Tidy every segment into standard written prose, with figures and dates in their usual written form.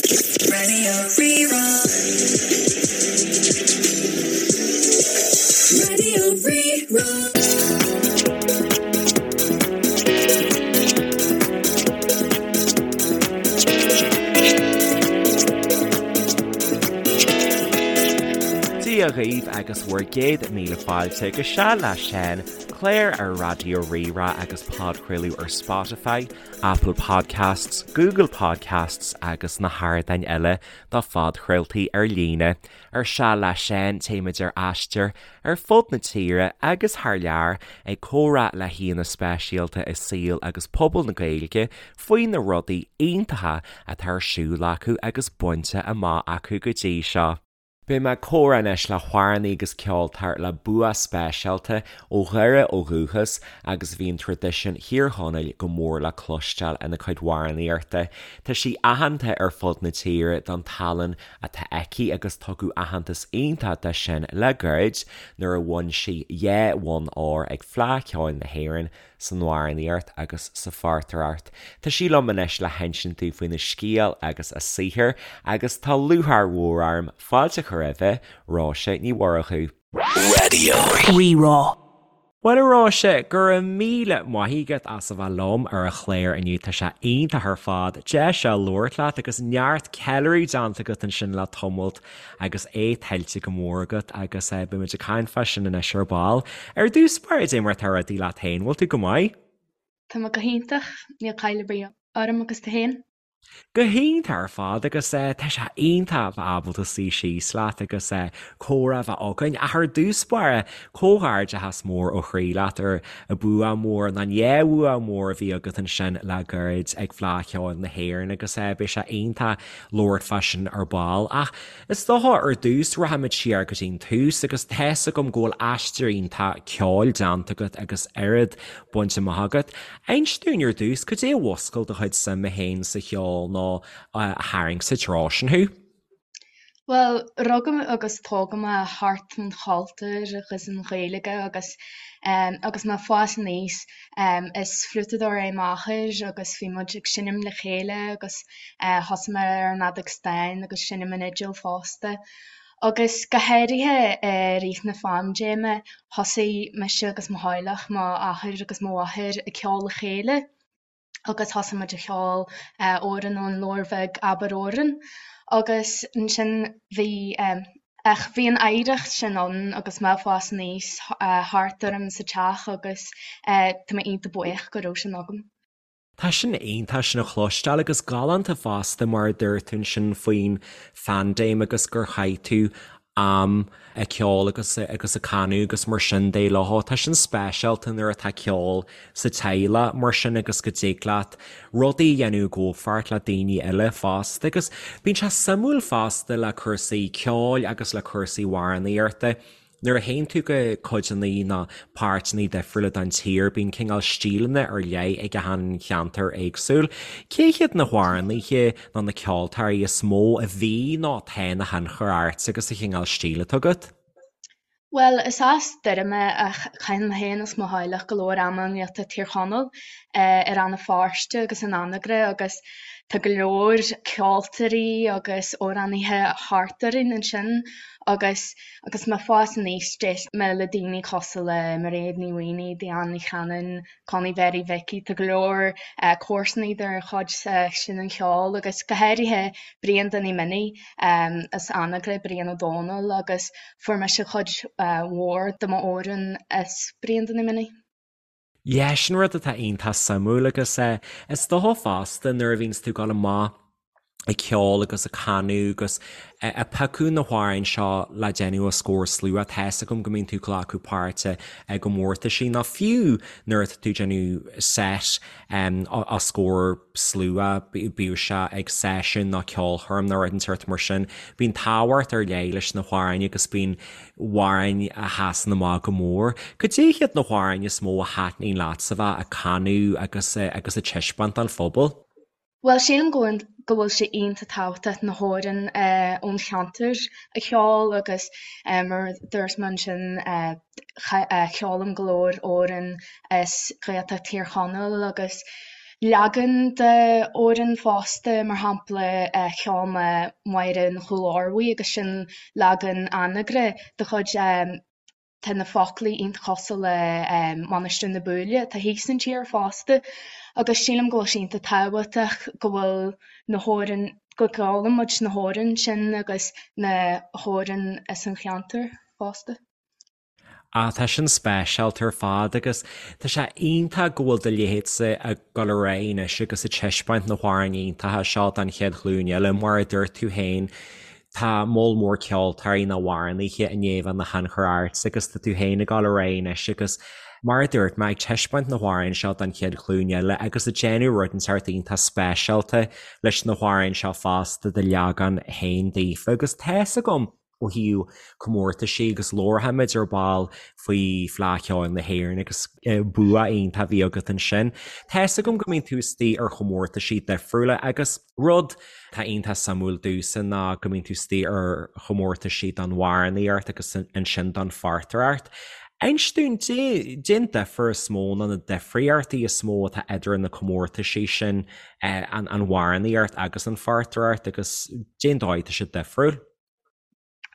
Radio Rí-Rá. Radio Rí-Rá. Dia dhaoibh agus bhur gcéad míle fáilte go Seal le Seán, clár ar Raidió Rí-Rá agus podchraoladh ar Spotify, Apple Podcasts, Google Podcasts agus na hardáin eile do phodchraoltaí ar líne. Ar Seal le Seán téimid ar aistear ar fud na tíre agus thar lear ag comhrá le haíonna speisialta i saol agus pobal na Gaeilge faoi na rudaí iontacha atá ar siúl acu agus bainte amach acu go dtí seo. Beidh mé ag comhrá anois le hamhránaí agus ceoltóir le bua speisialta ó Dhoire ó dhúchas agus bíonn traidisiún Thír Chonaill go mór le cloisteáil ina cuid amhránaíochta. Tá sí aitheanta ar fud na tíre don tallann atá aici agus tugadh aitheantas iontach dó sin le gairid nuair a bhain sí dhá bhonn óir ag Fleadh Cheoil na hÉireann san amhránaíocht agus sa phortaireacht. Tá sí liom anois le hinsint dúinn faoina scéal agus a saothar agus tá lúcháir mhór orm fáilte a chur roimhe, Róise Ní Mhurchú. Raidió Rí-Rá. Bhuel a Róise, go raibh míle maith agat as a bheith liom ar an chlár inniu, tá sé iontach ar fad deis a labhairt leat agus neart ceiliúradh déanta agat ansin le tamalt agus é tuillte go mór agat agus beidh muid ag caint fá sin anois ar ball. Ar dtús báire, cad é mar atá rudaí leat féin, bhfuil tú go maith? Tá mé go hiontach, níl caill ar bith orm agus tú féin? Go hiontach ar fad agus tá sé iontach a bheith ábalta suí síos leat agus comhrá a bheith againn. Ach ar dtús báire, comhghairdeachas mór ó chroí leat ar an bua mór, nó an dhá bhua mór a bhí agat ansin le gairid ag Fleadh Cheoil na hÉireann agus beidh sé iontach labhairt fá sin ar ball. Ach is dócha ar dtús rachaimid siar go dtí'n tús agus tá's agam go bhfuil aistear iontach ceoil déanta agat agus oiread bainte amach agat. Inis dúinn ar dtús, cad é a mhúscail do chuid suime féin sa cheol nó a tharraing sa treo sin thú? Bhuel, rugadh agus tógadh mé thart an chultúr agus an Ghaeilge agus agus mé ag fás aníos is fliútadóir é m'athair agus bhí muid ag seinm le chéile agus thosaigh mé ar an fheadóg stáin agus seinm an fhidil fosta. Agus go háirithe i rith na phaindéime thosaigh mise agus mo theaghlach, m'athair agus mo mháthair ag ceol le chéile. agus thosaigh muid a cheol amhrán ón leabhar bheag Abair Amhrán agus ansin bhí ach bhí an oidhreacht sin ann agus mé ag fás aníos thart orm sa teach agus tá mé iontach buíoch go raibh sin agam. Tá sin iontach sin a chloisteáil agus galánta fosta mar a dúirt tú ansin faoin phaindéim agus gur chaith tú am ag ceol agus agus ag canadh agus mar sin de leo. Tá sin speisialta nuair atá ceol sa teaghlach mar sin agus go dtig leat rudaí a dhéanamh i gcomhpháirt le daoine eile fosta agus bíonn sé suimiúil fosta le cúrsaí ceoil agus le cúrsaí amhránaíochta. Nuair a théann tú go codanna nó páirteanna difriúla den tír bíonn cineál stíleanna ar leith ag achan cheantar éagsúil. Cé hiad na hamhránaithe nó na ceoltóirí is mó a bhí nó atá ina thionchar ort agus an cineál stíl atá agat? Bhuel, is as Doire mé ach caitheann mé féin agus mo theaghlach go leor ama i nGaeltacht Thír Chonaill, i Rann na Feirste agus in Anagaire agus tá go leor ceoltóirí agus amhránaithe thart orainn ansin agus agus mé ag fás aníos d'éist mé le daoine cosúil le Mairéad Ní Mhaonaigh, Diane Ní Chanainn, Connie Mhary Mhicí, tá go leor comharsanaí de chuid sin an cheoil agus go háirithe Brian Danny Minnie as Anagaire, Brian Ó Dónaill agus fuair mise cuid mhór de m'amhráin as Brian Danny Minnie. Yeah, sin rud atá iontach suimiúil agus is dócha fosta nuair a bhíonns tú ag dul amach ag ceol agus ag canadh agus ag piocadh na hamhráin seo le déanamh os comhair slua, tá fhios agam go mbíonn tú ag glacadh páirte i gcomórtaisí nó fiú nuair atá tú ag déanamh set os comhair slua, bíodh sé ag seisiún nó ceolchoirm nó rud inteacht mar sin, bíonn tábhacht ar leith leis na hamhráin agus bíonn amhráin a sheasann amach go mór. Cad é hiad na hamhráin is mó a thaitníonn leatsa bheith ag canadh agus agus ag taispeáint don phobal? Bhuel, sílim go bhfuil go bhfuil sé iontach tábhachtach na hamhráin ón cheantar a cheol agus mar a dúirt mé ansin ceolaim go leor amhrán as Gaeltacht Thír Chonaill agus. leagan de amhrán fosta, mar shampla cheol mé Máire an Chúil Ormhaigh agus sin leagan Anagaire de chuid tá na foclaí iontach cosúil le Mainistir na Búille atá thíos an tír fosta agus sílim go bhfuil sé iontach tábhachtach go bhfuil na hamhráin, go gceolann muid na hamhráin sin agus na hamhráin as an cheantar fosta. Ah, tá sin speisialta ar fad agus tá sé iontach go bhfuil do leithéidse ag dul ar aghaidh anois agus ag taispeáint na hamhráin iontacha seo don chéad ghlúin eile. Mar a dúirt tú féin, tá moll mór ceoltóirí nó amhránaithe i ndiaidh a bheith ina thionchar ortsa agus tá tú féin ag dul ar aghaidh anois agus mar a dúirt mé, ag taispeáint na hamhráin seo don chéad ghlúin eile agus ag déanamh rud inteacht iontach speisialta leis na hamhráin seo fosta do leagan féin daofa agus tá's agam ó thaobh comórtaisí agus labharfaimid ar ball faoi Fleadh Cheoil na hÉireann agus bua iontach a bhí agat ansin. Tá's agam go mbíonn tú istigh ar chomórtaisí difriúla agus rud atá iontach suimiúil domhsa ná go mbíonn tú istigh ar chomórtaisí don amhránaíocht agus ansin don phortaireacht. Inis dúinn, cén difear is mó nó na difríochtaí is mó atá idir na comórtaisí sin, an amhránaíocht agus an phortaireacht agus cén dóigh atá siad difriúil?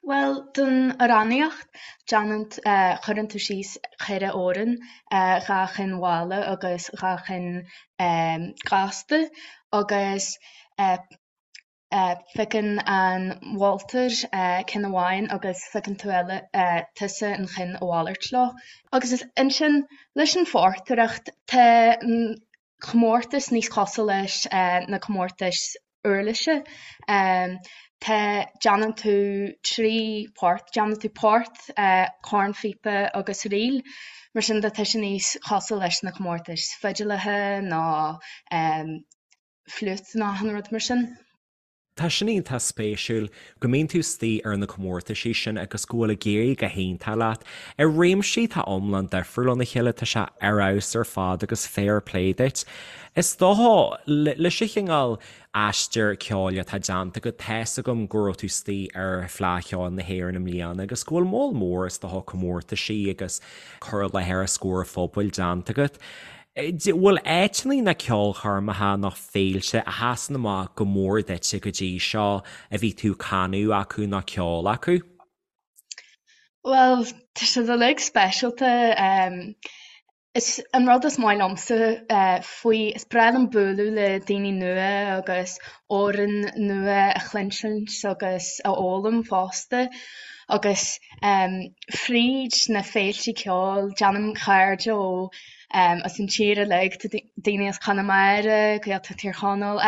Bhuel, don amhránaíocht, déanann, cuireann tú síos 4 amhrán, 2 chinn mhalla agus 2 chinn gasta agus piocann an moltóir ceann amháin agus piocann tú eile, tusa an cheann a mhalairt leo. Agus ansin leis an phortaireacht, tá an comórtas níos cosúil leis na comórtais uirlise. Tá, déanann tú 3 port, déanann tú port, cornphíopa agus ríl. Mar sin de tá sé níos cosúil leis na comórtais fidileacha nó fliúit nó achan rud mar sin. Tá sin iontach spéisiúil go mbíonn tú istigh ar na comórtaisí sin agus go bhfuil ag éirí go hiontach leat. I réimsí atá iomlán difriúil óna chéile, tá sé ar fheabhas ar fad agus fair play duit. Is dócha, leis an chineál aistear ceoil atá déanta agat, tá's agam go raibh tú istigh ar Fleadh Cheoil na hÉireann i mbliana agus go bhfuil moll mór, is dócha, comórtaisí agus cur i láthair os comhair an phobail déanta agat. Bhfuil áiteanna nó ceolchoirmeacha nó féilte a sheasann amach go mór duitse go dtí seo a bhí tú ag canadh acu nó ceol acu? Bhuel, tá siad uilig speisialta. Is an rud is maith liomsa faoi, is breá liom bualadh le daoine nua agus amhráin nua a chluinsint agus a fhoghlaim fosta. Agus fríd na féilte ceoil, déanaim cairde ó as an tír uilig, tá daoine as Conamara, Gaeltacht Thír Chonaill,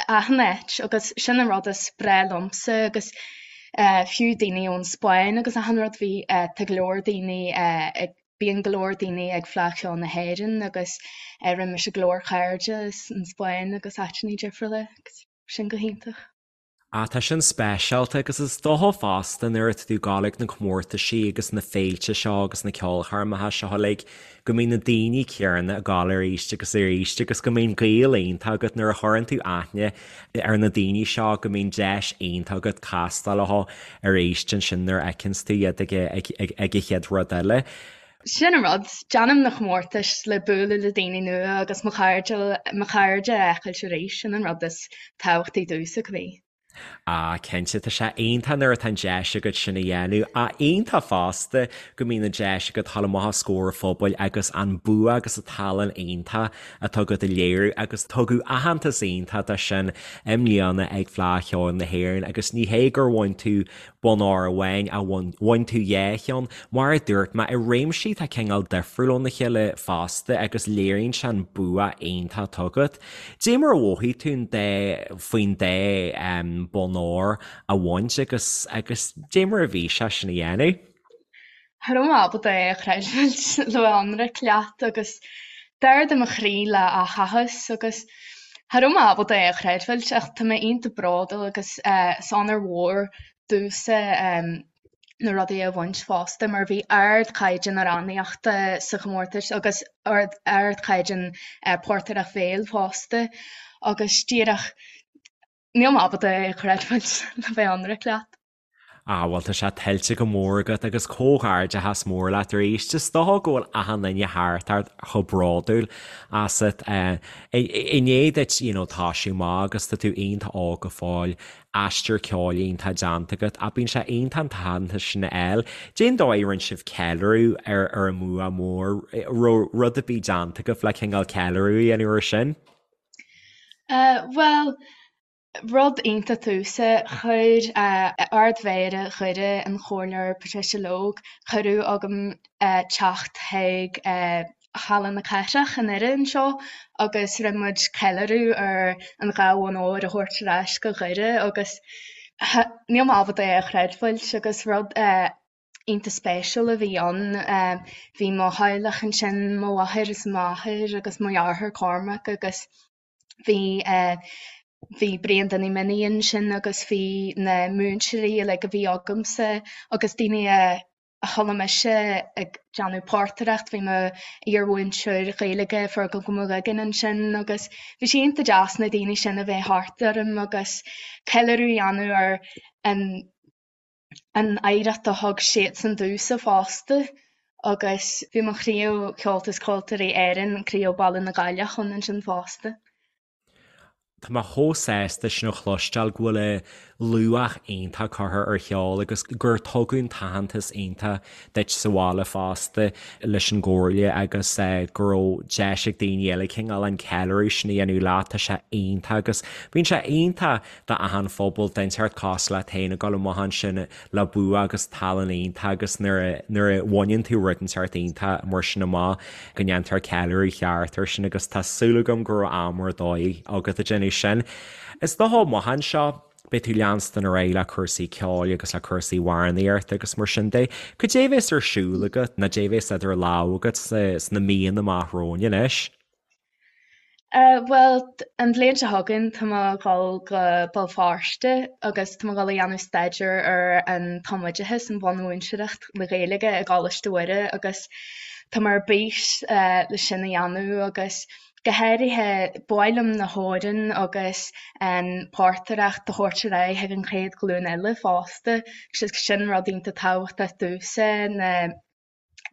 achan áit agus sin an rud is breá liomsa agus fiú daoine ón Spáinn agus achan rud, bhí, tá go leor daoine ag, bíonn go leor daoine ag Fleadh Cheoil na hÉireann agus rinne mise go leor cairde as an Spáinn agus áiteanna difriúla agus sin go hiontach. Ah, tá sin speisialta agus is dócha fosta nuair atá tú ag gabháil ag na comórtaisí agus na féilte seo agus na ceolchoirmeacha seo uilig go mbíonn na daoine céanna ag gabháil arís agus arís agus go mbíonn gaol iontach agat nuair a chuireann tú aithne ar na daoine seo go mbíonn deis iontach agat castáil leo arís ansin nuair a fheiceanns tú iad ag ag an chéad rud eile. Sin an rud, déanaim na comórtais le bualadh le daoine nua agus mo chairde, mo chairde a fheiceáilt arís, sin an rud is tábhachtaí domhsa, cibé. Ah, cinnte, tá sé iontach nuair atá an deis agat sin a dhéanamh. Ach iontach fosta go mbíonn an deis agat dul amach os comhair an phobail agus an bua agus an tallann iontach atá agat a léiriú agus tugadh aitheantas iontach dó sin i mbliana ag Fleadh Cheoil na hÉireann agus ní hé gur bhain tú bonn óir amháin ach bhain tú dhá cheann, mar a dúirt mé, i réimsí atá cineál difriúil óna chéile fosta agus léiríonn sé an bua iontach atá agat. Dé mar a mhothaigh tú an dá, faoin dá bonn óir a bhaint agus, agus dé mar a bhí sé sin a dhéanamh? Cha raibh mé ábalta é a chreidiúint le bheith ionraic leat agus d'ardaigh mo chroí le áthas agus cha raibh mé ábalta é a chreidbheáilt ach tá mé iontach bródúil agus is onóir mhór domhsa na rudaí a bhaint fosta mar bhí ardchaighdeán amhránaíochta sa chomórtas agus ardchaighdeán portaireacht bhéil fosta agus díreach níl mé ábalta é a chreidbheáilt le bheith ionraic leat. Ah bhuel tá sé tuillte go mór agat agus comhghairdeachas mór leat arís. Is dócha go bhfuil achan duine thart ort chomh bródúil asat. I ndiaidh duit you know toisiú amach agus tá tú iontach óg go fóill, aistear ceoil iontach déanta agat ach bíonn sé iontach an t-aitheantas sin a fháil. Cén dóigh a rinne sibh ceiliúradh ar ar an mbua mór? Raibh rud ar bith déanta agaibh le cineál ceiliúradh a dhéanamh ar sin? Bhuel, Rud iontach domhsa, chuir Ard-Mhéara Dhoire, an Comhairleoir Patricia Logue, cuireadh agam teacht chuig Halla na Cathrach i nDoire anseo agus rinne muid ceiliúradh ar an dhá bhonn óir a thabhairt ar ais go Dhoire agus níl mé ábalta é a chreidbheáilt agus rud iontach spéisiúil a bhí ann. Bhí mo theaghlach ansin, mo mháthair is m'athair agus mo dheartháir Cormac agus Bhí bhí Brian Danny Minnie ansin agus bhí na múinteoirí uilig a bhí agamsa agus daoine a a chuala mise ag déanamh portaireacht, bhí mo iar-mhúinteoir Gaeilge Fergal Mac Uiginn ansin agus bhí sé iontach deas na daoine sin a bheith thart orm agus ceiliúradh a dhéanamh ar an an oidhreacht a thug siadsan domhsa fosta agus bhí mo chraobh Cheoltas Ceoltóirí Éireann, Craobh Baile na Gaillimhe ann ansin fosta. Tá mé chomh sásta sin a chloisteáil go bhfuil luach iontach curtha ar cheol agus gur tugadh an t-aitheantas iontach duit sa bhaile fosta leis an gcomhairle agus go raibh deis ag daoine eile cineál an ceiliúradh sin a dhéanamh leat, tá sé iontach agus bíonn sé iontach d'achan phobal den tseort cosúil leat féin ag dul amach ansin le bua agus tallann iontach agus nuair a nuair a bhaineann tú rud den tseort iontach mar sin amach go ndéantar ceiliúradh ceart air sin agus tá súil agam go raibh am ar dóigh agat ag déanamh sin. Is dócha amach anseo beidh tú leanstan ar aghaidh le cúrsaí ceoil agus le cúrsaí amhránaíochta agus mar sin de. Cad é a bheas ar siúl agat nó cad é a bheas idir lámha agat sna míonna amach romhainn anois? Bhuel, an bhliain seo chugainn tá mé ag dul go Béal Feirste agus tá mé ag dul a dhéanamh staidéar ar an tumoideachas, an bhunmhúinteoireacht le Gaeilge i gColáiste Mhuire agus tá mé ar bís le sin a dhéanamh agus go háirithe ba mhaith liom na hamhráin agus an portaireacht a thabhairt ar aghaidh chuig an chéad ghlúin eile fosta. Sin rud iontach tábhachtach domhsa na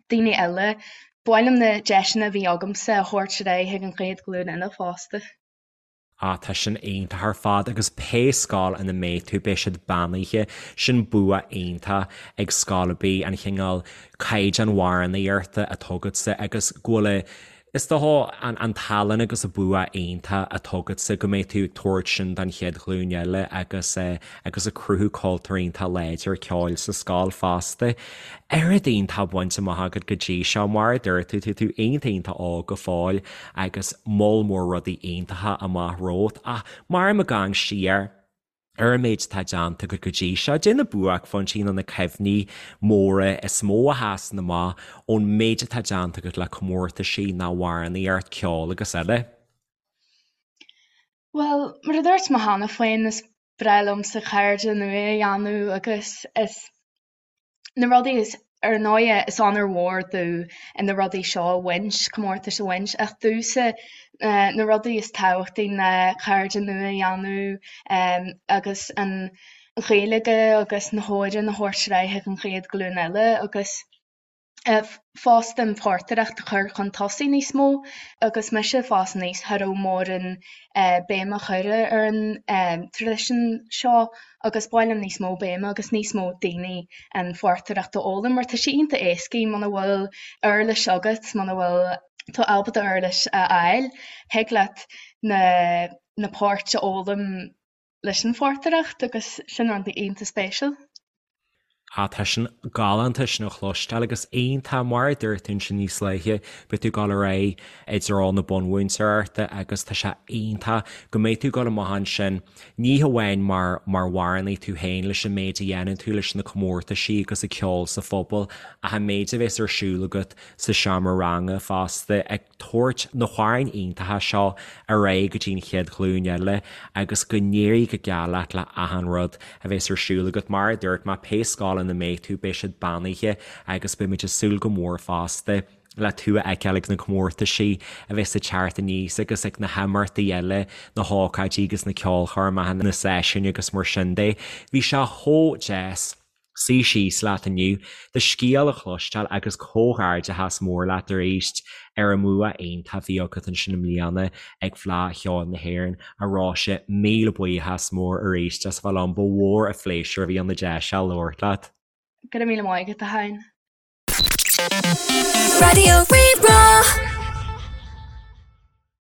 daoine eile. Ba mhaith liom na deiseanna a bhí agamsa a thabhairt ar aghaidh chuig an chéad ghlúin eile fosta. Ah, tá sin iontach ar fad agus pé scoil ina mbeidh tú, beidh siad beannaithe. Sin bua iontach ag scoil ar bith, an chineál caighdeán amhránaíochta atá agatsa agus go bhfuil a Is dócha an tallann agus an bua iontach atá agatsa go mbeidh tú ag tabhairt sin don chéad ghlúin eile agus agus ag cruthú cultúr iontach láidir ceoil sa scoil fosta. Oiread iontach bainte amach agat go dtí seo, mar a dúirt tú, tá tú iontach iontach óg go fóill agus moll mór rudaí iontacha amach romhat ach mar ag amharc siar, ar an méid atá déanta agat go dtí seo, cad é na buaicphointí nó na cuimhní móra is mó a sheasann amach ón méid atá déanta agat le comórtaisí nó amhránaíocht, ceol agus eile. Bhuel, mar a dúirt mé cheana féin, is breá liomsa cairde nua a dhéanamh agus is. na rudaí is, ar ndóighe, is onóir mhór domh na rudaí seo a bhaint, comórtais a bhaint, ach domhsa na rudaí is tábhachtaí ná cairde nua a dhéanamh agus an Ghaeilge agus na hamhráin a thabhairt ar aghaidh chuig an chéad ghlúin eile agus fosta an phortaireacht a chur chun tosaigh níos mó. Agus mise ag fás aníos, cha raibh mórán béim á chur ar an traidisiún seo agus ba mhaith liom níos mó béime agus níos mó daoine an phortaireacht a fhoghlaim mar tá sé iontach éascaí muna bhfuil uirlis agat, muna bhfuil tú ábalta uirlis a fháil, thig leat na na poirt a fhoghlaim leis an phortaireacht agus sin rud iontach spéisiúil. Ah, tá sin galánta sin a chloisteáil agus iontach, mar a dúirt tú ansin níos luaithe, beidh tú ag dul ar aghaidh i dtreo na bunmhúinteoireachta agus tá sé iontach go mbeidh tú ag dul amach ansin, ní hamháin mar mar amhránaí tú féin leis an méid a dhéanann tú leis na comórtaisí agus ag ceol sa phobal ach an méid a bheas ar siúl agat sa seomra ranga fosta ag tabhairt na hamhráin iontacha seo ar aghaidh go dtí an chéad ghlúin eile agus go n-éirí go geal leat le achan rud a bheas ar siúl agat. Mar a dúirt mé, pé scoil ina mbeidh tú, beidh siad beannaithe agus beidh muid ag súil go mór fosta le tú a fheiceáil ag na comórtaisí a bheas ag teacht aníos agus ag na himeachtaí eile, na hócáidí agus na ceolchoirmeacha, na seisiúin agus mar sin de. Bhí sé chomh deas. Suí síos leat inniu, do scéal a chloisteáil agus comhghairdeachas mór leat arís ar an mbua iontach a bhí agat ansin i mbliana ag Fleadh Cheoil na hÉireann. A Róise, míle buíochas mór arís as a bheith liom, ba mhór an phléisiúr a bhí ann an deis seo labhairt leat. Go raibh míle maith agat, a Sheáin. Raidió Rí-Rá.